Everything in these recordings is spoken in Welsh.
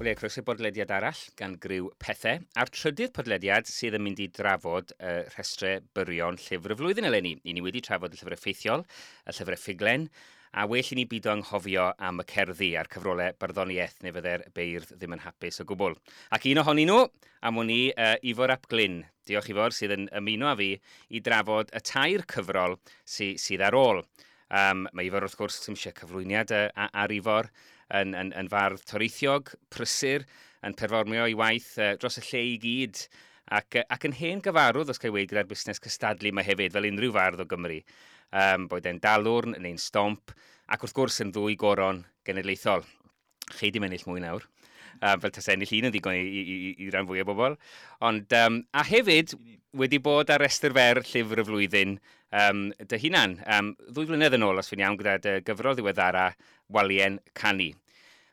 Wel, ie, croeso i bodlediad arall gan griw Pethe, a'r trydydd podlediad sydd yn mynd i drafod y rhestrau byrion llyfr y flwyddyn eleni. I ni wedi trafod y llyfrau ffeithiol, y llyfrau ffuglen, a well i ni bido anghofio am y cerddi a'r cyfrolau barddoniaeth, neu fydde'r beirdd ddim yn hapus o gwbl. Ac un ohonyn nhw, am wn i, Ifor ap Glyn. Diolch Ifor, sydd yn ymuno â fi i drafod y tair cyfrol sydd ar ôl. Mae Ifor wrth gwrs, ddim eisiau cyflwyniad ar Ifor, yn fardd toreithiog, prysur, yn perfformio ei waith dros y lle i gyd, ac yn hen gyfarwydd, os cael ei weud, gyda'r busnes cystadlu yma hefyd, fel unrhyw fardd o Gymru. Boed e'n Dalwrn neu'n Stomp, ac wrth gwrs yn ddwy goron genedlaethol. Chei di ennill mwy nawr, fel tase ennill un yn ddigon i ran fwy o bobl. Ond, a hefyd, wedi bod ar restr fer llyfr y flwyddyn dy hunan. 2 flynedd yn ôl, os fi'n iawn, gyda dy gyfrol ddiweddara, Walien Canu.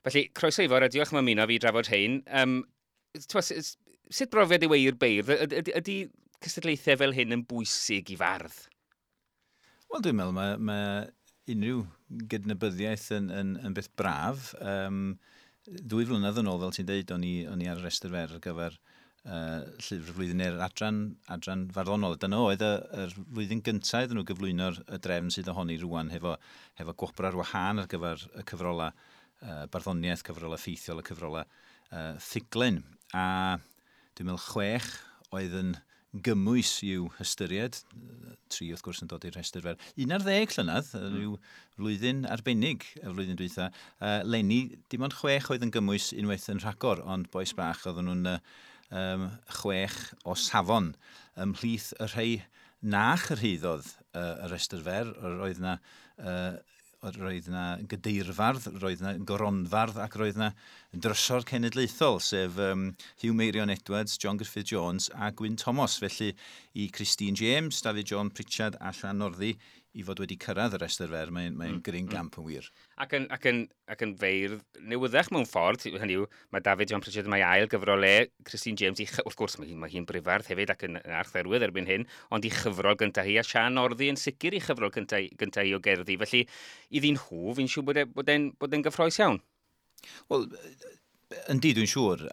Felly, croeso Ifor, a diolch am ymuno fi i drafod rhein. Sut brofiad yw e i'r beirdd? Ydy cystadlaethau fel hyn yn bwysig i fardd? Wel, dwi'n meddwl mae unrhyw gydnabyddiaeth yn beth braf. 2 flynedd yn ôl, fel ti'n deud, o'n i ar y restr fer ar gyfer llyfr y flwyddyn neu'r adran farddonol. Dyna oedd yr flwyddyn gyntaf iddyn nhw gyflwyno'r y drefn sydd ohoni rŵan hefo gwobr ar wahân ar gyfer y cyfrolau barddoniaeth, cyfrolau ffeithiol, y cyfrolau ffuglen. A dwi'n meddwl 6 oedd yn gymwys i'w hystyried, 3 wrth gwrs yn dod i'r rhestr fer. 11 llynedd, rhyw flwyddyn arbennig y flwyddyn dwytha. Leni, dim ond 6 oedd yn gymwys unwaith yn rhagor, ond bois bach oedden nhw'n 6 o safon. Ymhlith y rhai na chyrhaeddodd y rhestr fer, roedd na gadeirfardd, roedd na goronfardd ac roedd na drysor cenedlaethol, sef Huw Meirion Edwards, John Griffith Jones a Gwyn Thomas. Felly i Christine James, David John Pritchard a Sian Northey i fod wedi cyrraedd y restr fer, mae'n gryn gamp yn wir. Ac yn feirdd newyddach mewn ffordd, hynny yw, mae David John Pritchard mae ail gyfrol e, Christine James, wrth gwrs mae hi'n brifardd hefyd ac yn archdderwydd erbyn hyn, ond i chyfrol gyntaf hi, a Sian Northey yn sicr i chyfrol gyntaf hi o gerddi. Felly, iddyn nhw, fi'n siŵr bod e'n gyffrous iawn. Wel, yndi, dwi'n siŵr,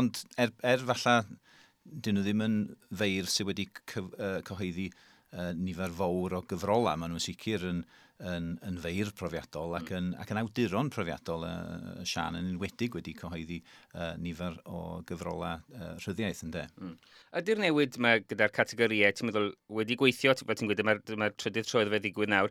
ond er falle, dyn nhw ddim yn feirdd sydd wedi cyhoeddi nifer fawr o gyfrolau. Maen nhw'n sicr yn feirdd profiadol ac yn awduron profiadol. Sian yn enwedig wedi cyhoeddi nifer o gyfrolau rhyddiaith, ynde. Ydy'r newid yma gyda'r categorïau, ti'n meddwl, wedi gweithio, fel ti'n gweud, dyma'r trydydd tro iddo fe ddigwydd nawr,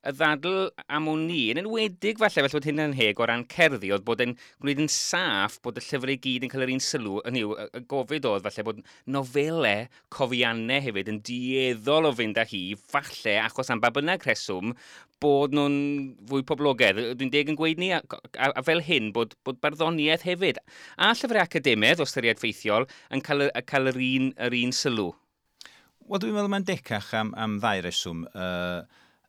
y ddadl am wn i, yn enwedig falle bod hynna'n heg o ran cerddi, oedd bod e'n gwneud yn saff bod y llyfrau i gyd yn cael yr un sylw, hynny yw, y gofid oedd falle bod nofelau, cofiannau hefyd yn dueddol o fynd â hi, falle, achos am ba bynnag rheswm, bod nhw'n fwy poblogaidd. Dwi'n deg yn gweud ni, a fel hyn, bod barddoniaeth hefyd. A llyfrau academaidd, o ystyried ffeithiol, yn cael yr un sylw. Wel, dwi'n meddwl mae'n decach am ddau reswm.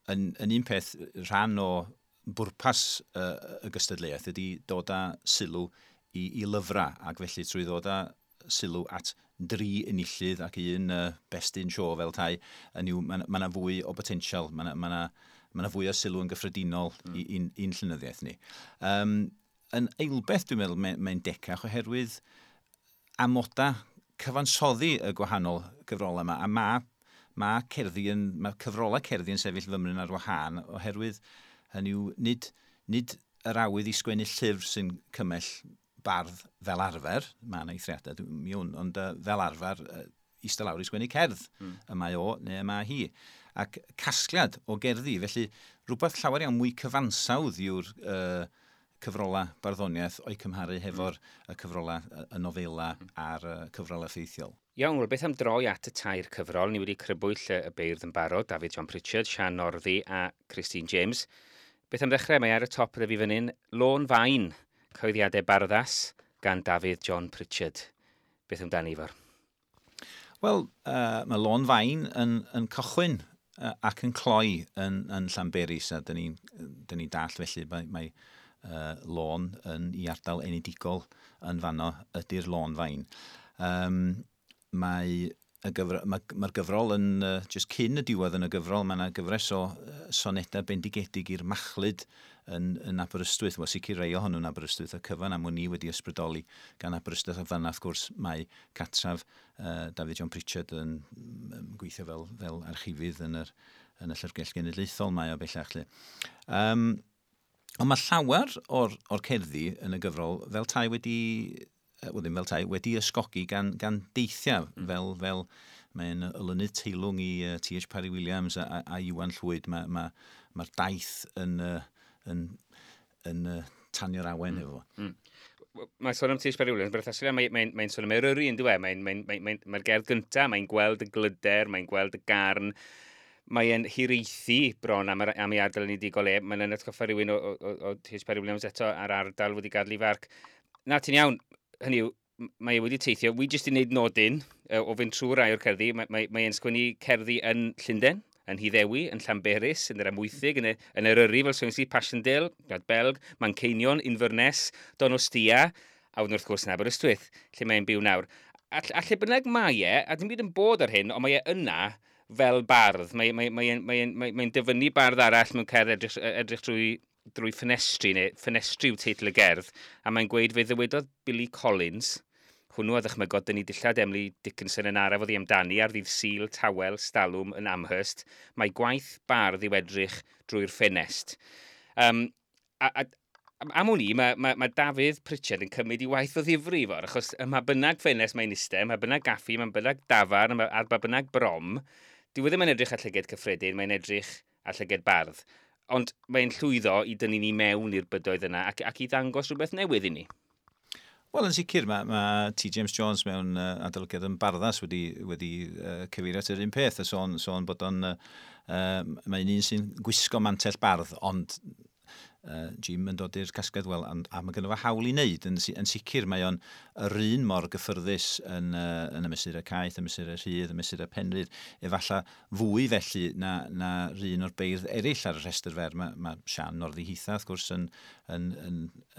Yn un peth, rhan o bwrpas y gystadleuaeth ydy dod â sylw i lyfrau, ac felly trwy ddod â sylw at 3 enillydd ac un best in show fel tai, yn yw, ma' 'na fwy o botensial, ma' 'na fwy o sylw yn gyffredinol i'n llenyddiaeth ni. Yn eilbeth, dwi'n meddwl, mae'n decach oherwydd amoda cyfansoddi y gwahanol gyfrolau yma, a mae cyfrolau cerddi yn sefyll fymryn ar wahân oherwydd hynny yw nid yr awydd i sgwennu llyfr sy'n cymell bardd fel arfer, mae yna eithriadau, mi wn, ond fel arfer, eistedd lawr i sgwennu cerdd, y mae o neu y mae hi. Ac casgliad o gerddi, felly rhywbeth llawer iawn mwy cyfansawdd yw'r cyfrolau barddoniaeth o'i cymharu hefo'r y cyfrolau, y nofela a'r cyfrolau ffeithiol. Iawn, wel, beth am droi at y tair cyfrol? Ni wedi crybwyll y beirdd yn barod, David John Pritchard, Sian Northey a Christine James. Beth am ddechrau? Mae ar y top gyda fi fan hyn, Lôn Fain, Cyhoeddiadau Barddas gan David John Pritchard. Beth amdani, Ifor? Wel, mae Lôn Fain yn cychwyn ac yn cloi yn Llanberis, a dyn ni'n dall felly mae lôn yn i ardal enedigol yn fanno ydy'r Lôn Fain. Mae Y gyfro, mae'r gyfrol yn, just cyn y diwedd yn y gyfrol, mae yna gyfres o sonedau bendigedig i'r machlud yn Aberystwyth. Wel, sicr rei ohonyn nhw'n Aberystwyth, y cyfan am wn i wedi ysbrydoli gan Aberystwyth, a fanna, wrth gwrs, mae catraf David John Pritchard yn gweithio fel archifydd yn y Llyfrgell Genedlaethol mae o bellach. Lle. Ond mae llawer o'r cerddi yn y gyfrol fel tai wedi, wel ddim fel tai, wedi ysgogi gan deithiau, fel mae'n olynydd teilwng i T.H. Parry Williams a Iwan Llwyd. Mae'r daith yn tanio'r awen efo. Mae'n sôn am T.H. Parry Williams, berthnasol, mae sôn am Eryri yn dweud, mae'r gerdd gyntaf, mae'n gweld y glyder, mae'n gweld y garn, mae'n hiraethu bron am ei ardal enedigol e. Mae'n atgoffa rhywun o T.H. Parry Williams eto ar ardal wedi gadael ei farc. Na, ti'n iawn, hynny yw, mae e wedi teithio. Wi jyst i wneud nodyn o fynd trwy rai o'r cerddi. Mae e'n sgwennu cerddi yn Llundain, yn Nhyddewi, yn Llanberis, yn yr Amwythig, yn Eryri, fel sôn i, Passchendaele, Gwlad Belg, Manceinion, Inverness, Donostia, a wedyn wrth gwrs yn Aberystwyth, lle mae'n byw nawr. A lle bynnag mae e, a dim byd yn bod ar hyn, ond mae e yna fel bardd. Mae dyfynnu bardd arall mewn cerdd edrych drwy ffenestri, neu ffenestri yw teitl y gerdd, a mae'n gweud fe ddywedodd Billy Collins, hwnnw a ddychmygodd dynnu dillad Emily Dickinson yn araf oddi amdani ar ddydd Sul tawel stalwm yn Amherst, mae gwaith bardd i'w edrych drwy'r ffenest. A am wn i, mae Dafydd Pritchard yn cymryd i waith o ddifri fawr, achos ym mha bynnag ffenest mae'n iste, ym mha bynnag gaffi, ym mha bynnag dafarn, ar ba bynnag brom, dyw e ddim yn edrych ar llyged cyffredin, mae'n edrych ar llyged bardd. Ond mae'n llwyddo i dynnu ni mewn i'r bydoedd yna ac i ddangos rhywbeth newydd i ni. Wel, yn sicr, mae T. James Jones mewn adolygiad yn Barddas wedi cyfeirio at yr un peth, a sôn bod o'n, mae'n un sy'n gwisgo mantell bardd, ond Jim yn dod i'r casgliad, wel, a mae gynno fo hawl i wneud, yn sicr mae o'n yr un mor gyffyrddus yn y mesurau caeth, y mesurau rhydd, y mesurau penrydd, efallai fwy felly na un o'r beirdd eraill ar y rhestr fer. Mae Sian Northey hitha, wrth gwrs, yn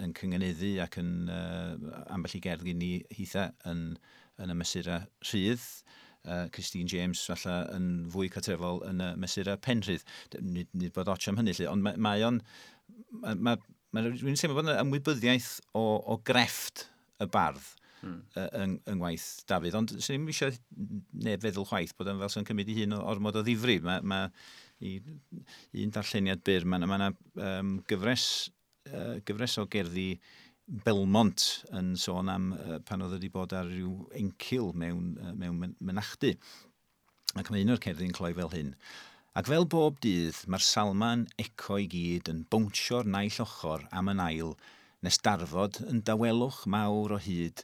cynganeddu ac yn ambell i gerdd gen i hitha yn y mesurau rhydd. Christine James falle yn fwy cartrefol yn y mesurau penrhydd. Nid bod ots am hynny, lle, ond mae o'n... Mae dwi'n teimlo bod yna ymwybyddiaeth o grefft y bardd yng ngwaith Dafydd, ond swn i'm eisiau neb feddwl chwaith bod o'n fel sy'n cymryd ei hun o ormod o ddifri. Mae un darlleniad byr, mae yna gyfres o gerddi Belmont yn sôn am pan oedd wedi bod ar ryw encil mewn mynachdy. Ac mae un o'r cerddi'n cloi fel hyn. Ac fel bob dydd, mae'r salma'n eco i gyd yn bownsio'r naill ochr am yn ail, nes darfod yn dawelwch mawr o hyd,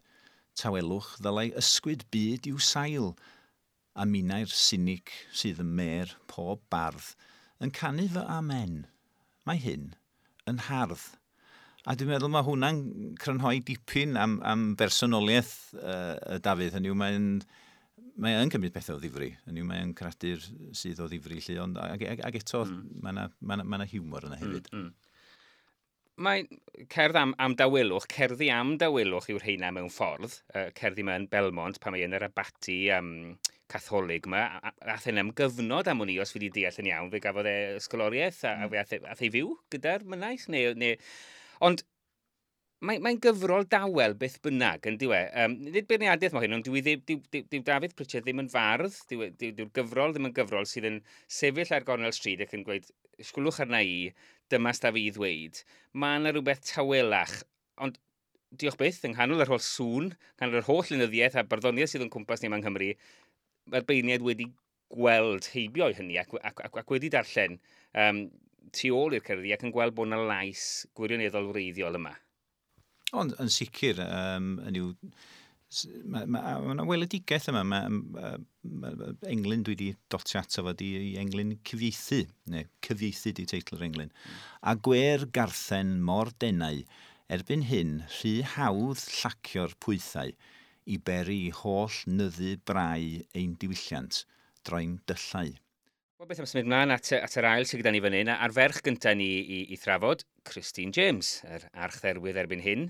tawelwch ddylai ysgwyd byd i'w sail, a minnau'r sinic sydd ym mêr pob bardd yn canu fy amen. Mae hyn yn hardd. A dwi'n meddwl mae hwnna'n crynhoi dipyn am bersonoliaeth Dafydd. Hynny yw, mae yn cymryd pethau o ddifri. Hynny yw, mae'n creadur sydd o ddifri, lle, ond ag eto mae yna hiwmor yna hefyd. Mae cerdd am dawelwch, cerddi am dawelwch yw'r rheina mewn ffordd. Cerddi yma yn Belmont, pan mae yn yr abaty catholig yma. Ath e'n am gyfnod am wn i, os fi wedi deall yn iawn, fe gafodd e ysgoloriaeth a fe ath e fyw gyda'r mynaich. Neu. Ond mae'n gyfrol dawel beth bynnag, yn dyw e. Nid beirniadaeth mae hyn, ond dyw Dafydd Pritchard ddim yn fardd, dyw'r gyfrol ddim yn gyfrol sydd yn sefyll ar gornel stryd ac yn gweud, "Sgwlwch arna i, dyma sta fi i ddweud." Mae yna rhywbeth tawelach, ond diolch byth, yng nghanol yr holl sŵn, nghanol yr holl lenyddiaeth a barddoniaeth sydd yn cwmpas ni yma yng Nghymru, mae'r beirniaid wedi gweld heibio i hynny ac wedi darllen tu ôl i'r cerddi ac yn gweld bod yna lais gwirioneddol wreiddiol yma. Ond yn sicr, yn yw, mae yna weledigaeth yma. Mae englyn dwi wedi dotio ato fo di i englyn cyfieithu, neu cyfieithu di teitl yr englyn. A gwer garthen mor denau, erbyn hyn rhy hawdd llacio'r pwythau i beri i holl nyddu brau ein diwylliant droi'n dyllau. Wel, beth am symud mlaen at yr ail sydd gyda ni fan hyn, a'r ferch gyntaf ni i thrafod, Christine James, yr archdderwydd erbyn hyn,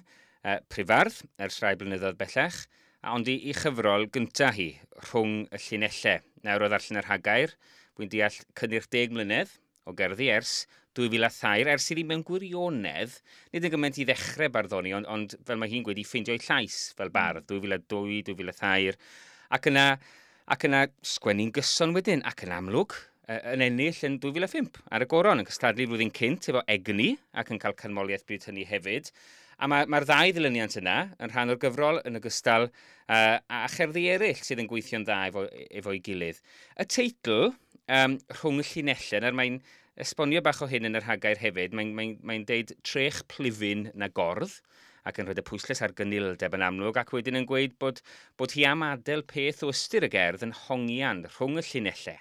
prifardd ers rhai blynyddoedd bellach, A ond i chyfrol gyntaf hi, Rhwng y Llinellau. Nawr o ddarllen yr rhagair, wy'n deall cynnyrch 10 mlynedd o gerddi ers 2003, ers iddi mewn gwirionedd, nid yn gymaint i ddechrau barddoni, ond fel mae hi'n gweud, i ffeindio'i llais fel bardd, 2002, 2003, ac yna sgwennu'n gyson wedyn, ac yn amlwg, yn ennill yn 2005 ar y goron, yn cystadlu flwyddyn cynt efo Egni, ac yn cael canmoliaeth bryd hynny hefyd. A mae'r ddau ddilyniant yna yn rhan o'r gyfrol yn ogystal a cherddi eraill sydd yn gweithio'n dda efo'i gilydd. Y teitl, Rhwng y Llinellau, nawr mae'n esbonio bach o hyn yn yr rhagair hefyd, mae'n deud trech plufyn na gordd, ac yn rhoi y pwyslais ar gynildeb yn amlwg, ac wedyn yn gweud bod hi am adael peth o ystyr y gerdd yn hongian rhwng y llinellau,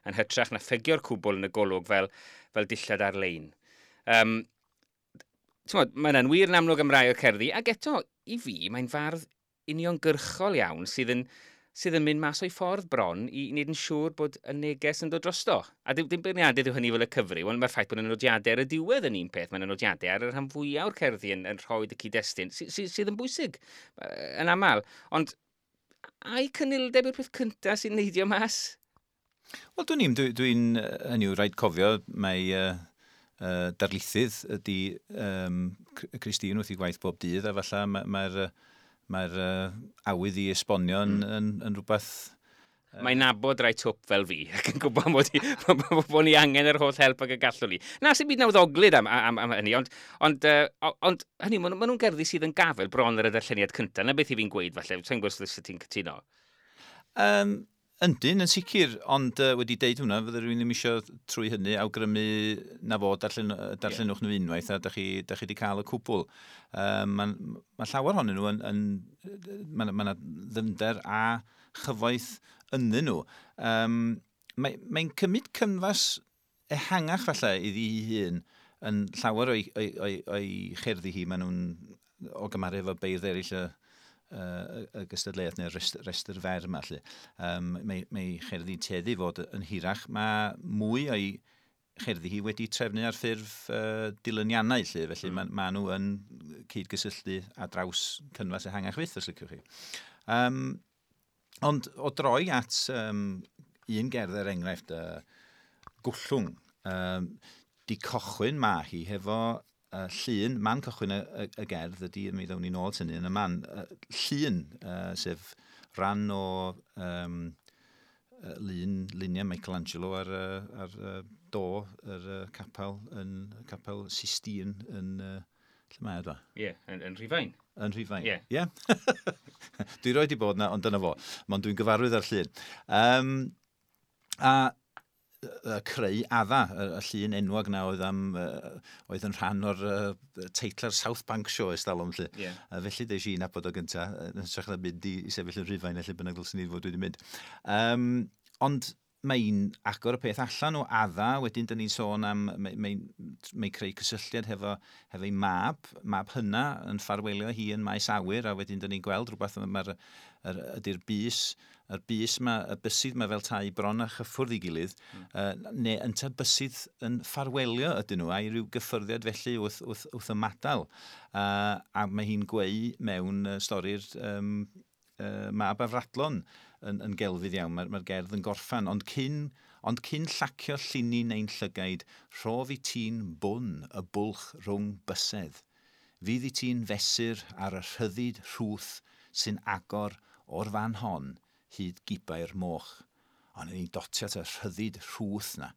yn hytrach na ffegio'r cwbl yn y golwg fel dillad ar-lein. Mae yna'n wir yn amlwg am rai o'r cerddi, ac eto, i fi, mae'n fardd uniongyrchol iawn sydd yn mynd mas o'i ffordd bron i wneud yn siŵr bod y neges yn dod drosto. A dim beirniadaeth yw hynny fel y cyfryw, ond mae'r ffaith bod y nodiadau ar y diwedd yn un peth. Mae'n nodiadau ar y rhan fwyaf o'r cerddi yn rhoi y cyd-destun, sydd yn bwysig yn aml. Ond ai cynildeb yw'r peth cyntaf sy'n neidio mas? Wel, dwi'n hynny yw, rhaid cofio, mae darlithydd ydy Christine wrth ei gwaith bob dydd, a falle mae'r awydd i esbonio yn rhywbeth. Mae'n nabod rai twp fel fi, ac yn gwybod bod ni angen yr holl help ag y gallwn ni. Na, sy'n byd nawddoglyd am hynny, ond hynny, ma nhw'n gerddi sydd yn gafel bron ar y darlleniad cyntaf. Na beth i fi'n gweud, falle, sa'n gwybod os ti'n cytuno. Yndyn, yn sicr, ond wedi deud hwnna, fydde rhywun ddim eisiau trwy hynny awgrymu na fod darllenwch nhw unwaith a da chi wedi cael y cwbl. Mae llawer ohonyn nhw yn, ma ddyfnder a chyfoeth ynddyn nhw. Mae'n cymryd cynfas ehangach falle iddi hi hun yn llawer o'i cherddi hi, maen nhw'n o gymharu efo beirdd eraill y gystadleuaeth neu'r restr fer yma. Lly. Mae cherddi tueddu fod yn hirach. Mae mwy o'i cherddi hi wedi trefnu ar ffurf dilyniannau, lly, felly ma nhw yn cyd-gysylltu ar draws cynfas ehangach fyth, os liciwch chi. Ond o droi at un gerdd er enghraifft, Gwllwng, di cychwyn ma hi hefo llun, man cychwyn y gerdd ydy, mi ddown ni nôl at hynny yn y man, llun, sef rhan o luniau Michelangelo ar do yr capel, yn capel Sistine yn, lle mae o, dwa? Ie, yeah, yn Rhufain. Yn Rhufain. Ie. Yeah. Dwi roed i bod na, ond dyna fo. Ond dwi'n gyfarwydd ar llun. A creu Adda, y llun enwog na oedd yn rhan o'r teitla'r South Bank Show ers talwm, lly. Felly des i nabod o gynta, yn hytrach na mynd i sefyll yn Rhufain, lle bynnag ddylswn i fod wedi mynd. Ond mae'n agor y peth allan o Adda, wedyn dyn ni'n sôn am, mae creu cysylltiad hefo ei mab hynna yn ffarwelio hi yn maes awyr, a wedyn dyn ni'n gweld rhywbeth, ydy'r bys, yr bys ma, y bysydd ma fel tai bron a chyffwrdd i gilydd, neu ynta bysydd yn ffarwelio ydyn nhw, a i ryw gyffyrddiad felly wrth ymadael. A mae hi'n gweu mewn stori'r mab afradlon yn gelfydd iawn, mae gerdd yn gorffan, ond cyn llacio llinyn ein llygaid, rhof i ti'n bwn y bwlch rhwng bysedd. Fydd i ti'n fesur ar y rhyddid rhwth sy'n agor o'r fan hon hyd gibau'r moch. Ond ni'n dotio at y rhyddid rhwth na.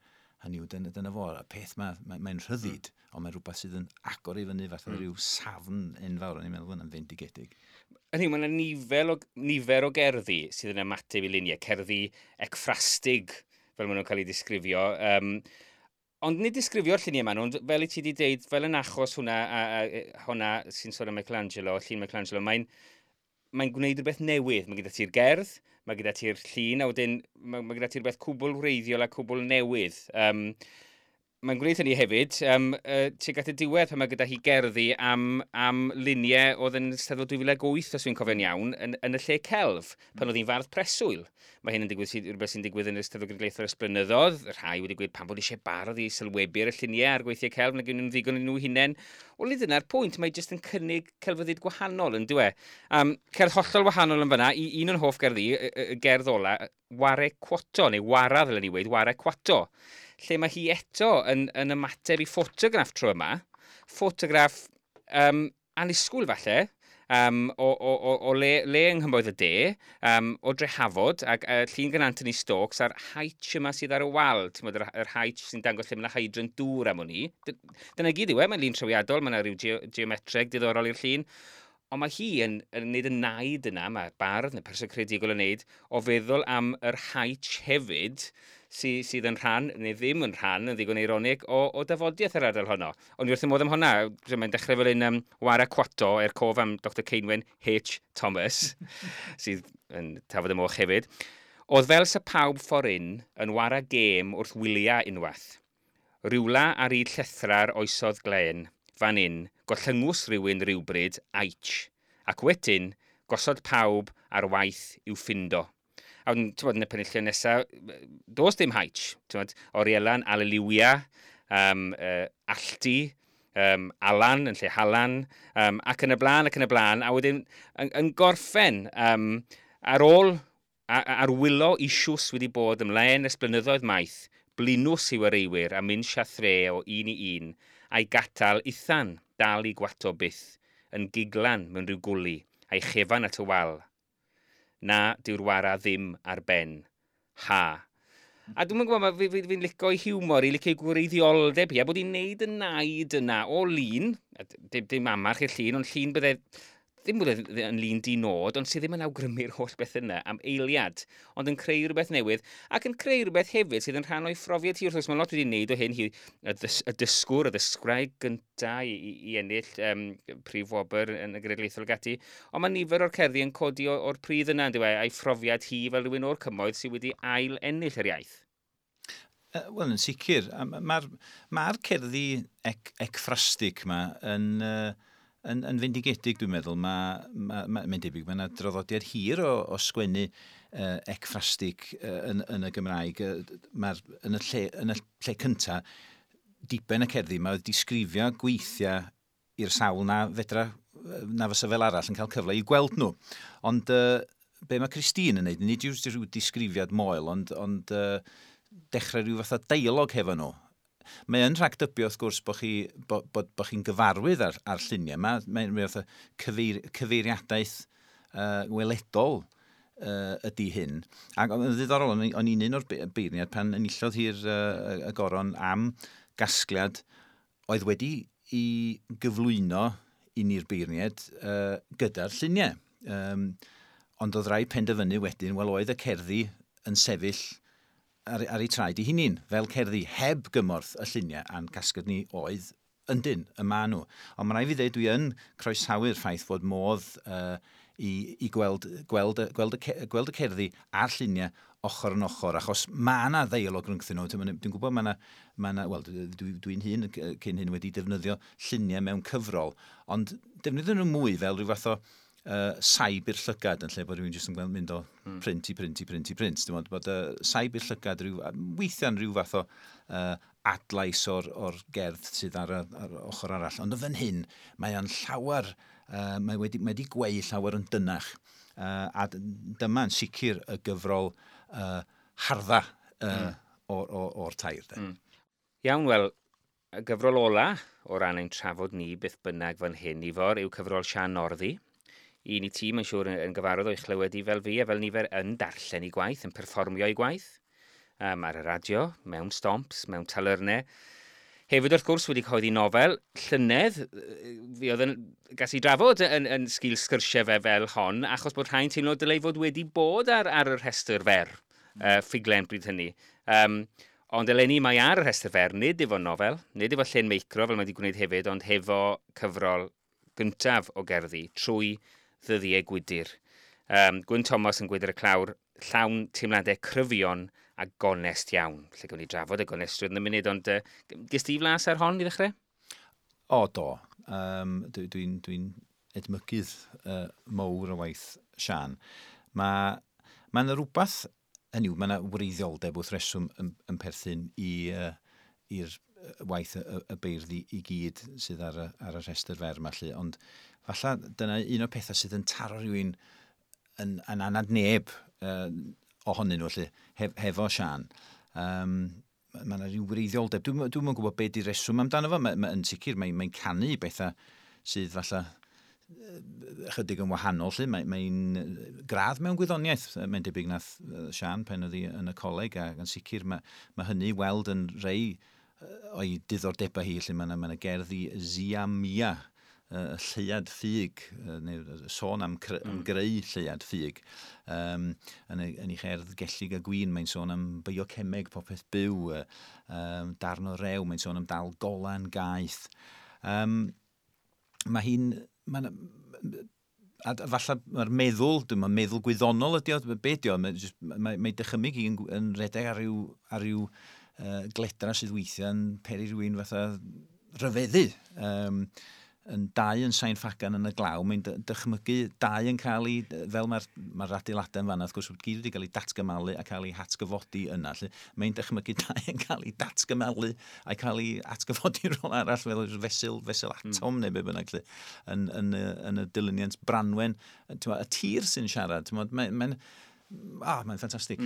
Hynny yw, dyna fo, y peth mae'n rhyddid, ond mae'n rhywbeth sydd yn agor i fyny fath o ryw safn enfawr, o'n i'n meddwl hwnna'n fendigedig. Hynny, mae yna nifer o gerddi sydd yn ymateb i luniau, cerddi ecffrastig, fel maen nhw'n cael eu disgrifio. Ond nid disgrifio'r lluniau maen nhw, ond fel i ti wedi deud, fel yn achos hwnna, hwnna sy'n sôn am Michelangelo, llun Michelangelo, mae'n gwneud rhywbeth newydd. Mae gyda ti'r gerdd, mae gyda ti'r llun, a wedyn mae gyda ti rhywbeth cwbl wreiddiol a cwbl newydd. Mae'n gwneud hynny hefyd, tuag at y diwedd pan mae gyda hi gerddi am luniau oedd yn Steddfod 2008, os fi'n cofio'n iawn, yn y lle celf, pan oedd hi'n fardd preswyl. Mae hyn yn digwydd, rhywbeth sy'n digwydd yn y Steddfod Genedlaethol ers blynyddoedd. Rhai wedi gweud pam bod eisiau bardd i sylwebu ar y lluniau a'r gweithiau celf, nag nhw'n ddigon yn nhw hunain. Wel, nid dyna'r pwynt, mae jyst yn cynnig celfyddyd gwahanol yn dyw e. Cerdd hollol wahanol yn fyna, i un o'n hoff gerddi, y gerdd ola, Ware Cwato, neu Wara ddylen ni weud, Ware Cwato, lle mae hi eto yn ymateb i ffotograff tro yma. Ffotograff annisgwyl falle, o le yng Nghymoedd y De, o Drehafod, ac llun gan Anthony Stokes a'r haich yma sydd ar y wal, ti'n gwbod, yr haich sy'n dangos lle mae yna hydrant dŵr am wn i. Dyna gyd yw e, mae'n lun trawiadol, mae yna rhyw geometreg diddorol i'r llun. Ond mae hi yn neud y naid yna, mae bardd neu person creadigol yn neud, o feddwl am yr haich hefyd, sydd yn rhan, neu ddim yn rhan, yn ddigon eironig, o dafodiaeth yr ardal honno. Ond i wrth y modd am honna, mae'n dechrau fel un Wara Cwato, er cof am Dr Ceinwen H. Thomas, sydd yn tafod y moch hefyd. Oedd fel sa pawb ffordd un yn wara gêm wrth wyliau unwaith. Rywla ar hyd llethra'r oesodd glen, fan un, gollyngus rhywun rhywbryd, aich, ac wedyn gosod pawb ar waith i'w ffindo. A wedyn, ti'n bod, yn y penillion nesaf, does dim haich. Ti'n bod, Orielan, Aleluia, Alltu, Alan yn lle Halan, ac yn y blaen, ac yn y blaen. A wedyn, yn gorffen, ar ôl, ar wylo isiws wedi bod ymlaen ers blynyddoedd maith, blinws i'w areiwyr a mynd siathre o un i un, a'i gatal ithan dal i gwato byth, yn giglan mewn rhyw gwli, a'i chefan at y wal. Na, dyw'r wara ddim ar ben. Ha. A dwi'm yn gwybod, fi'n licio ei hiwmor, i licio ei gwreiddioldeb hi, a bod hi'n neud y naid yna o lun, a dim amarch i'r llun, ond llun bydde, ddim bod yn lun di nod, ond sydd ddim yn awgrymu'r holl beth yna am eiliad, ond yn creu rhywbeth newydd, ac yn creu rhywbeth hefyd sydd yn rhan o'i phrofiad hi. Wrth gwrs, mae lot wedi wneud o hyn, hi, y dysgwr, y ddysgwraig gynta i ennill prif wobr yn y Genedlaethol ac ati, ond mae nifer o'r cerddi yn codi o'r pridd yna, yndyw e, a'i phrofiad hi fel rhywun o'r cymoedd sydd wedi ail ennill yr iaith. Wel, yn sicr, mae'r cerddi ecffrastig yma yn fendigedig, dwi'n meddwl. Mae'n debyg, mae yna draddodiad hir o sgwennu ecffrastig yn y Gymraeg. Mae'r, yn y lle cynta, diben y cerddi, mae disgrifio gweithiau i'r sawl na fedra, na fysa fel arall yn cael cyfle i gweld nhw. Ond be mae Christine yn neud, nid yw'r rhyw disgrifiad moel, ond dechrau rhyw fath o dialog hefo nhw. Mae yn rhagdybio, wrth gwrs, bod chi'n gyfarwydd ar lluniau. Mae'n fath o cyfeiriadaeth weledol ydy hyn. Ac yn ddiddorol, o'n i'n un o'r beirniad pan enillodd hi'r y goron am gasgliad oedd wedi i gyflwyno i ni'r beirniad gyda'r lluniau. Ond oedd rai penderfynu wedyn, wel oedd y cerddi yn sefyll ar eu traed eu hunain, fel cerddi heb gymorth y lluniau, a'n casgliad ni oedd yndyn, y ma nhw. Ond mae'n rhaid fi ddeud, dwi yn croesawu'r ffaith fod modd i gweld y cerddi a'r lluniau ochr yn ochr, achos mae yna ddeialog rhyngthyn nhw. Dwi'n gwybod mae yna, wel, dwi'n hun cyn hyn wedi defnyddio lluniau mewn cyfrol, ond defnyddio nhw mwy fel rhyw fath o saib i'r llygad yn lle bod rhywun jyst yn gweld mynd o print i print i print i print. Dwi'n meddwl bod saib i'r llygad weithiau'n rhyw fath o adlais o'r gerdd sydd ar ochr arall. Ond yn fan hyn, mae o'n llawer, mae wedi gweu llawer yn dynach. A dyma'n sicr y gyfrol hardda o'r tair. De. Iawn, wel, y gyfrol ola o ran ein trafod ni beth bynnag fan hyn, Ifor, yw cyfrol Siân Northy. Un i ti, mae'n siŵr, yn gyfarwydd o'i chlywed i fel fi, a fel nifer yn darllen ei gwaith, yn perfformio ei gwaith, ar y radio, mewn stomps, mewn talyrnau. Hefyd, wrth gwrs, wedi cyhoeddi nofel llynedd, fi oedd yn gas i drafod yn sgil sgyrsiau fe fel hon, achos bod rhai'n teimlo dylai fod wedi bod ar y rhestr fer, ffuglen bryd hynny. Ond eleni mae ar y rhestr fer, nid efo nofel, nid efo Llên Meicro, fel mae wedi gwneud hefyd, ond hefo cyfrol gyntaf o gerddi, trwy ddyddiau gwydyr. Gwyn Thomas yn gweud ar y clawr, llawn teimladau cryfion a gonest iawn. Lle gawn ni drafod y gonestrwydd yn y munud, ond ges ti flas ar hon i ddechrau? O, do. Dwi'n dwi edmygydd mowr o waith Sian. Mae ma yna rhywbeth, hynny yw, mae yna wreiddioldeb wrth reswm yn perthyn i'r waith y beirdd i gyd sydd ar y rhestr fer yma, lly. Ond falle dyna un o'r pethau sydd yn taro rhywun yn anad neb ohonyn nhw, lly, hefo Sian. Mae yna rhyw wreiddioldeb. Dwi'm yn gwybod be di'r reswm amdano fo. Yn sicr, mae canu bethau sydd falle ychydig yn wahanol, lly. Mae'n gradd mewn gwyddoniaeth, mae'n debyg nath Sian pen oedd hi yn y coleg, ac yn sicr mae hynny weld yn rei o'i diddordebau hi, lle mae yna gerdd i Zia Mia, y lleuad ffug, neu sôn am greu lleuad ffug. Yn ei cherdd Gellig a Gwin, mae'n sôn am biocemeg, popeth byw, darn o rew, mae'n sôn am dal golan gaeth. Mae hi'n... A falle mae'r meddwl, dwi'n meddwl gwyddonol ydi o, be ydi o, mae dychymyg hi'n yn redeg ar ryw gledra sydd weithiau'n peri rhywun fatha rhyfeddu. Yn dau yn Sain Ffagan yn y glaw, mae'n dychmygu dau yn cael ei, fel mae'r ma adeiladau yn fanna, wrth gwrs, gyd wedi cael ei datgymalu a cael ei hatgyfodi yna. Lle. Mae'n dychmygu dau yn cael ei datgymalu a cael ei atgyfodi rhywle arall, fel fesul atom neu be bynnag, lle, yn y dilyniant Branwen. Y tir sy'n siarad, mae'n mae'n ffantastig.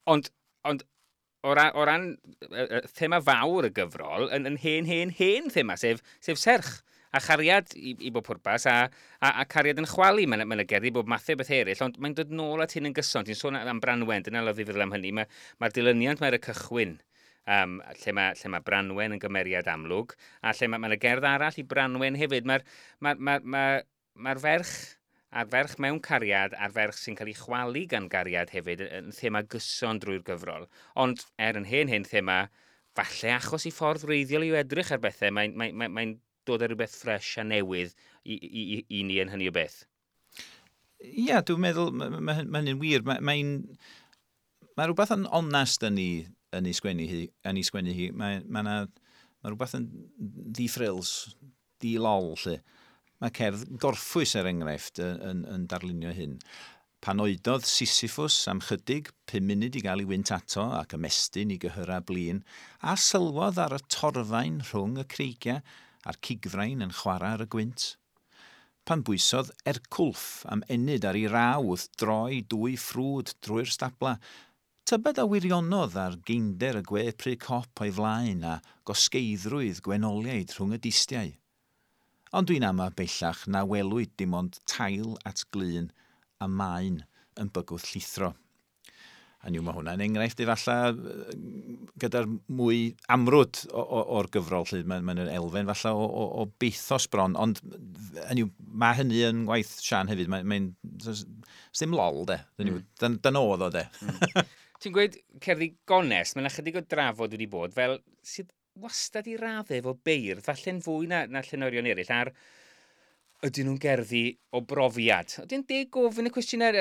Ond o ran thema fawr y gyfrol, yn hen, hen, hen thema, sef serch a chariad i bob pwrpas, a cariad yn chwalu. Mae'n ma gerddi bob mathau beth eraill, ond mae'n dod nôl at hyn yn gyson. Ti'n sôn am Branwen, dyna lyfli feddwl am hynny. Mae'r dilyniant mae'r cychwyn, lle mae Branwen yn gymeriad amlwg, a lle mae ma gerdd arall i Branwen hefyd. Mae'r ma ferch a'r ferch mewn cariad a'r ferch sy'n cael ei chwalu gan gariad hefyd yn thema gyson drwy'r gyfrol. Ond er yn hen hen thema, falle achos i ffordd wreiddiol i edrych ar bethau, mae'n mae dod â rhywbeth ffres a newydd i ni yn hynny o beth. Ie, yeah, dwi'n meddwl, mae ma hynny'n wir. Mae ma rhywbeth yn onest yn ei sgwennu hi. Yn ei sgwennu hi. Mae rhywbeth yn di-frills, di-lol, lle. Mae cerdd Gorffwys, er enghraifft, yn darlunio hyn. Pan oedodd Sisyphus am chydig, 5 munud i gael ei wynt ato ac ymestyn i gyhyrau blin, a sylwodd ar y torfaen rhwng y creigiau a'r cigfrain yn chwarae ar y gwynt. Pan bwysodd Ercwlff am ennyd ar ei raw wrth droi dwy ffrwd drwy'r stabla, tybed a wirionodd ar geinder y gwe pry cop o'i flaen a gosgeiddrwydd gwenoliaid rhwng y distiau. Ond dwi'n ama bellach na welwyd dim ond tail at glun a maen yn bygwth llithro. A niw, mae hwnna'n enghraifft efallai gyda'r mwy amrwd o'r gyfrol, lle mae'n mae elfen falle o bathos bron, ond hynny yw, mae hynny yn gwaith Sian hefyd, mae'n ddim lol, de. Dan oedd o, de. Ti'n gweud cerddi gonest, mae'n ychydig o drafod wedi bod, fel sydd wastad i raddau efo beirdd, falle'n fwy na llenorion eraill, ar ydyn nhw'n gerddi o brofiad? Ydy'n deg gofyn y cwestiynau?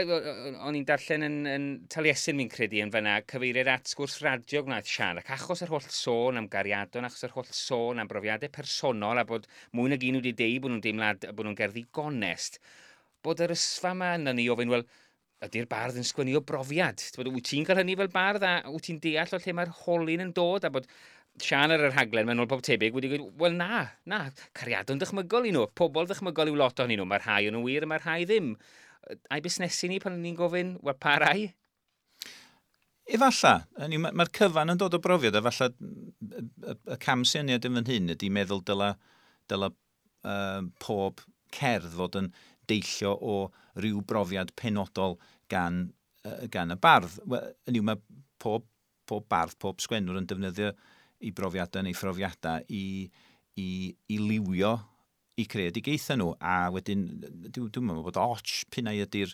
O'n i'n darllen yn Taliesin, mi'n credu, yn fyna, cyfeiriad at sgwrs radio gwnaeth Sian, ac achos yr holl sôn am gariadon, achos yr holl sôn am brofiadau personol, a bod mwy nag un wedi deud bod nhw'n deimlad, bod nhw'n gerddi gonest, bod yr ysfa yma yna ni ofyn, wel, ydy'r bardd yn sgwennu o brofiad? Wyt ti'n cael hynny fel bardd a wyt ti'n deall o lle mae'r holyn yn dod a bod Sian ar y rhaglen, mae'n ôl pob tebyg, wedi gweud, wel na, na, cariadon dychmygol i nhw, pobl dychmygol yw lot ohonyn nhw, mae rhai o'n nhw wir a mae rhai ddim. A'i busnesu ni pan ni'n gofyn, wel, pa rai? Efalla, mae'r cyfan yn dod o brofiad, a falle y cam syniad yn fan hyn ydy meddwl dyla pob cerdd fod yn deillio o ryw brofiad penodol gan y bardd. Wel, hynny yw, mae pob bardd, pob sgwennwr yn defnyddio i brofiadau neu phrofiadau i liwio i creadigaethau nhw. A wedyn, dwi'n meddwl bod och pinnau ydy'r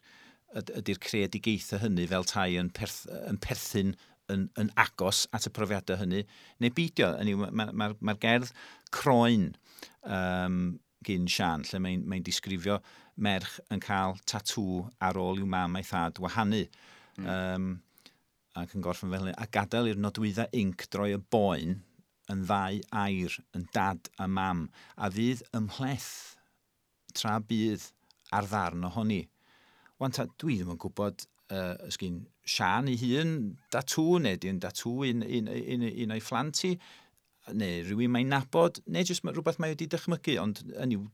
creadigaethau hynny fel tai yn perthyn yn agos at y profiadau hynny, neu beidio. Hynny yw, ma gerdd Croen gyn Sian, lle mae disgrifio merch yn cael tatŵ ar ôl i'w mam a'i thad wahanu. Ac yn gorffen fel hyn, a gadael i'r nodwyddau inc droi y boen yn ddau air, yn dad a mam, a fydd ymhleth tra bydd ar ddarn ohoni. Wan ta, dwi ddim yn gwybod ysgyn Sian ei hun datŵ, neu di'n datŵ un o'i phlant hi, neu rhywun mae'n nabod, neu jyst rhywbeth mae wedi dychmygu, ond yn i'w...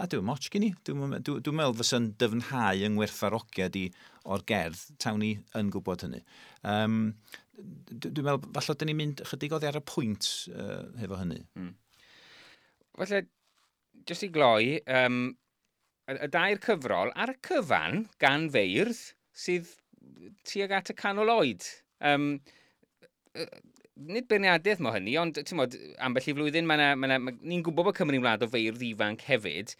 A dwi'n moch gen i. Dwi'n dwi meddwl fysa'n dyfnhau yng ngwerthfarogiad i o'r gerdd, tawn ni yn gwybod hynny. Dwi'n meddwl, falle dyn ni'n mynd chydig oddi ar y pwynt hefo hynny. Falle, jyst i gloi, y dair cyfrol ar y cyfan gan feirdd sydd tuag at y canol oed. Nid beirniadaeth mo hynny, ond ti'n modd, ambell i flwyddyn, ni'n gwybod bod Cymru'n wlad o feirdd ifanc hefyd.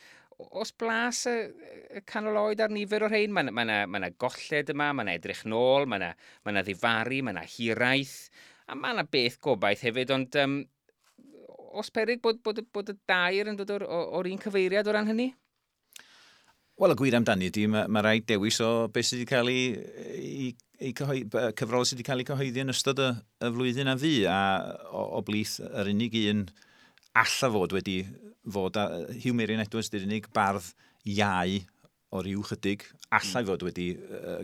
Os blas y canol oed ar nifer o'r rhain, mae 'na golled yma, mae 'na edrych nôl, mae 'na ddifaru, mae 'na hiraeth, a mae 'na beth gobaith hefyd, ond os peryg bod y dair yn dod o'r un cyfeiriad o ran hynny? Wel, y gwir amdani ydy, mae rhaid dewis o beth sydd wedi cael ei cyfrol sydd wedi cael ei cyhoeddi yn ystod y flwyddyn a fu, a o blith yr unig un alla fod wedi fod, a Huw Meirion Edwards, di'r unig bardd iau o ryw chydig allai fod wedi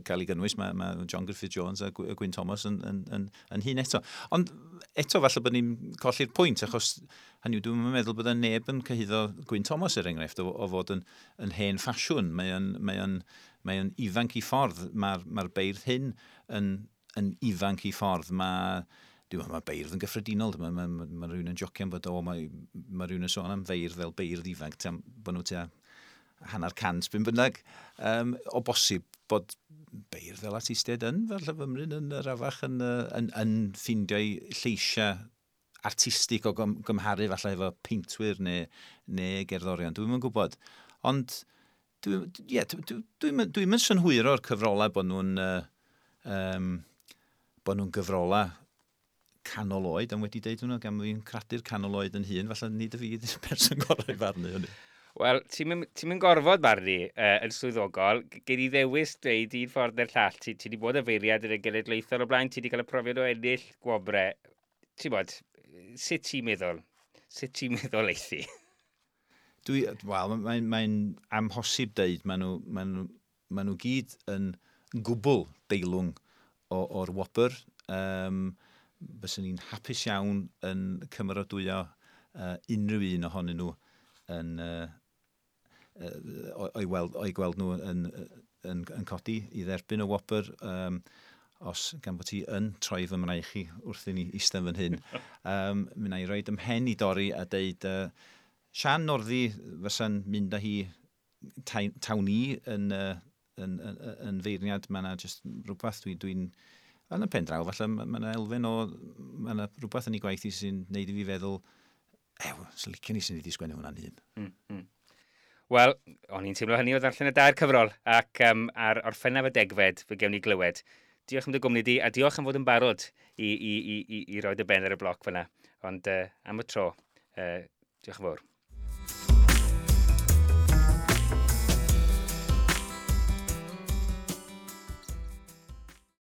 cael ei gynnwys. Mae John Griffith Jones a Gwyn Thomas yn hyn eto. Ond eto falle bod ni'n colli'r pwynt, achos hynny yw, dwi'n meddwl bod y neb yn cyhuddo Gwyn Thomas er enghraifft o fod yn hen ffasiwn. Mae o'n ifanc i ffordd. Mae'r beirdd hyn yn ifanc i ffordd. Dwi'n meddwl mae beirdd yn gyffredinol. Mae rhywun yn jocian bod o, mae rhywun yn sôn am feirdd fel beirdd ifanc, bod nhw tua hanner cant, byn bynnag. O bosib bod beirdd fel artistiaid yn, falle fymryn yn yr afach yn ffindio'i lleisiau artistig o gymharu falle efo peintwyr neu gerddorion. Dwi'm yn gwybod. Ond ie, dwi'm yn synhwyro'r cyfrolau bod nhw'n gyfrolau canol oed, am wedi deud hwnnw, gan fi'n cradur canol oed yn hun, falle nid y fi ydy'r person gorau i farnu hynny. Wel, ti'n mynd gorfod barnu yn swyddogol. Gei di ddewis dweud un ffordd neu'r llall. Ti di bod y feirniad yn y genedlaethol o blaen, ti di cael y profiad o ennill gwobre. Ti'n bod, sut ti'n meddwl? Sut ti'n meddwl eithi? Wel, mae amhosib deud, maen nhw gyd yn gwbl deilwng o'r wobr. Byswn ni'n hapus iawn yn cymeradwyo unrhyw un ohonyn nhw yn, o'i gweld nhw yn codi i dderbyn y wobr. Os gan bod ti yn troi fy mraich i wrth i ni eistedd fan hyn. Mi wna i roid ymhen i dorri a deud Sian Northy fysa'n mynd â hi tawn i yn feirniad. Mae yna just rhywbeth yn y pen draw, falle mae yna elfen o, mae yna rhywbeth yn ei gwaith i sy'n neud i fi feddwl, ew, sy'n licio ni sy'n wedi sgwennu hwnna'n hun. Wel, o'n i'n teimlo hynny o ddarllen y dair cyfrol, ac ar Orffennaf y 10fed, fe gewn ni glywed. Diolch am dy gwmni di, a diolch am fod yn barod i roi dy ben ar y bloc fyna. Ond am y tro, diolch yn fawr.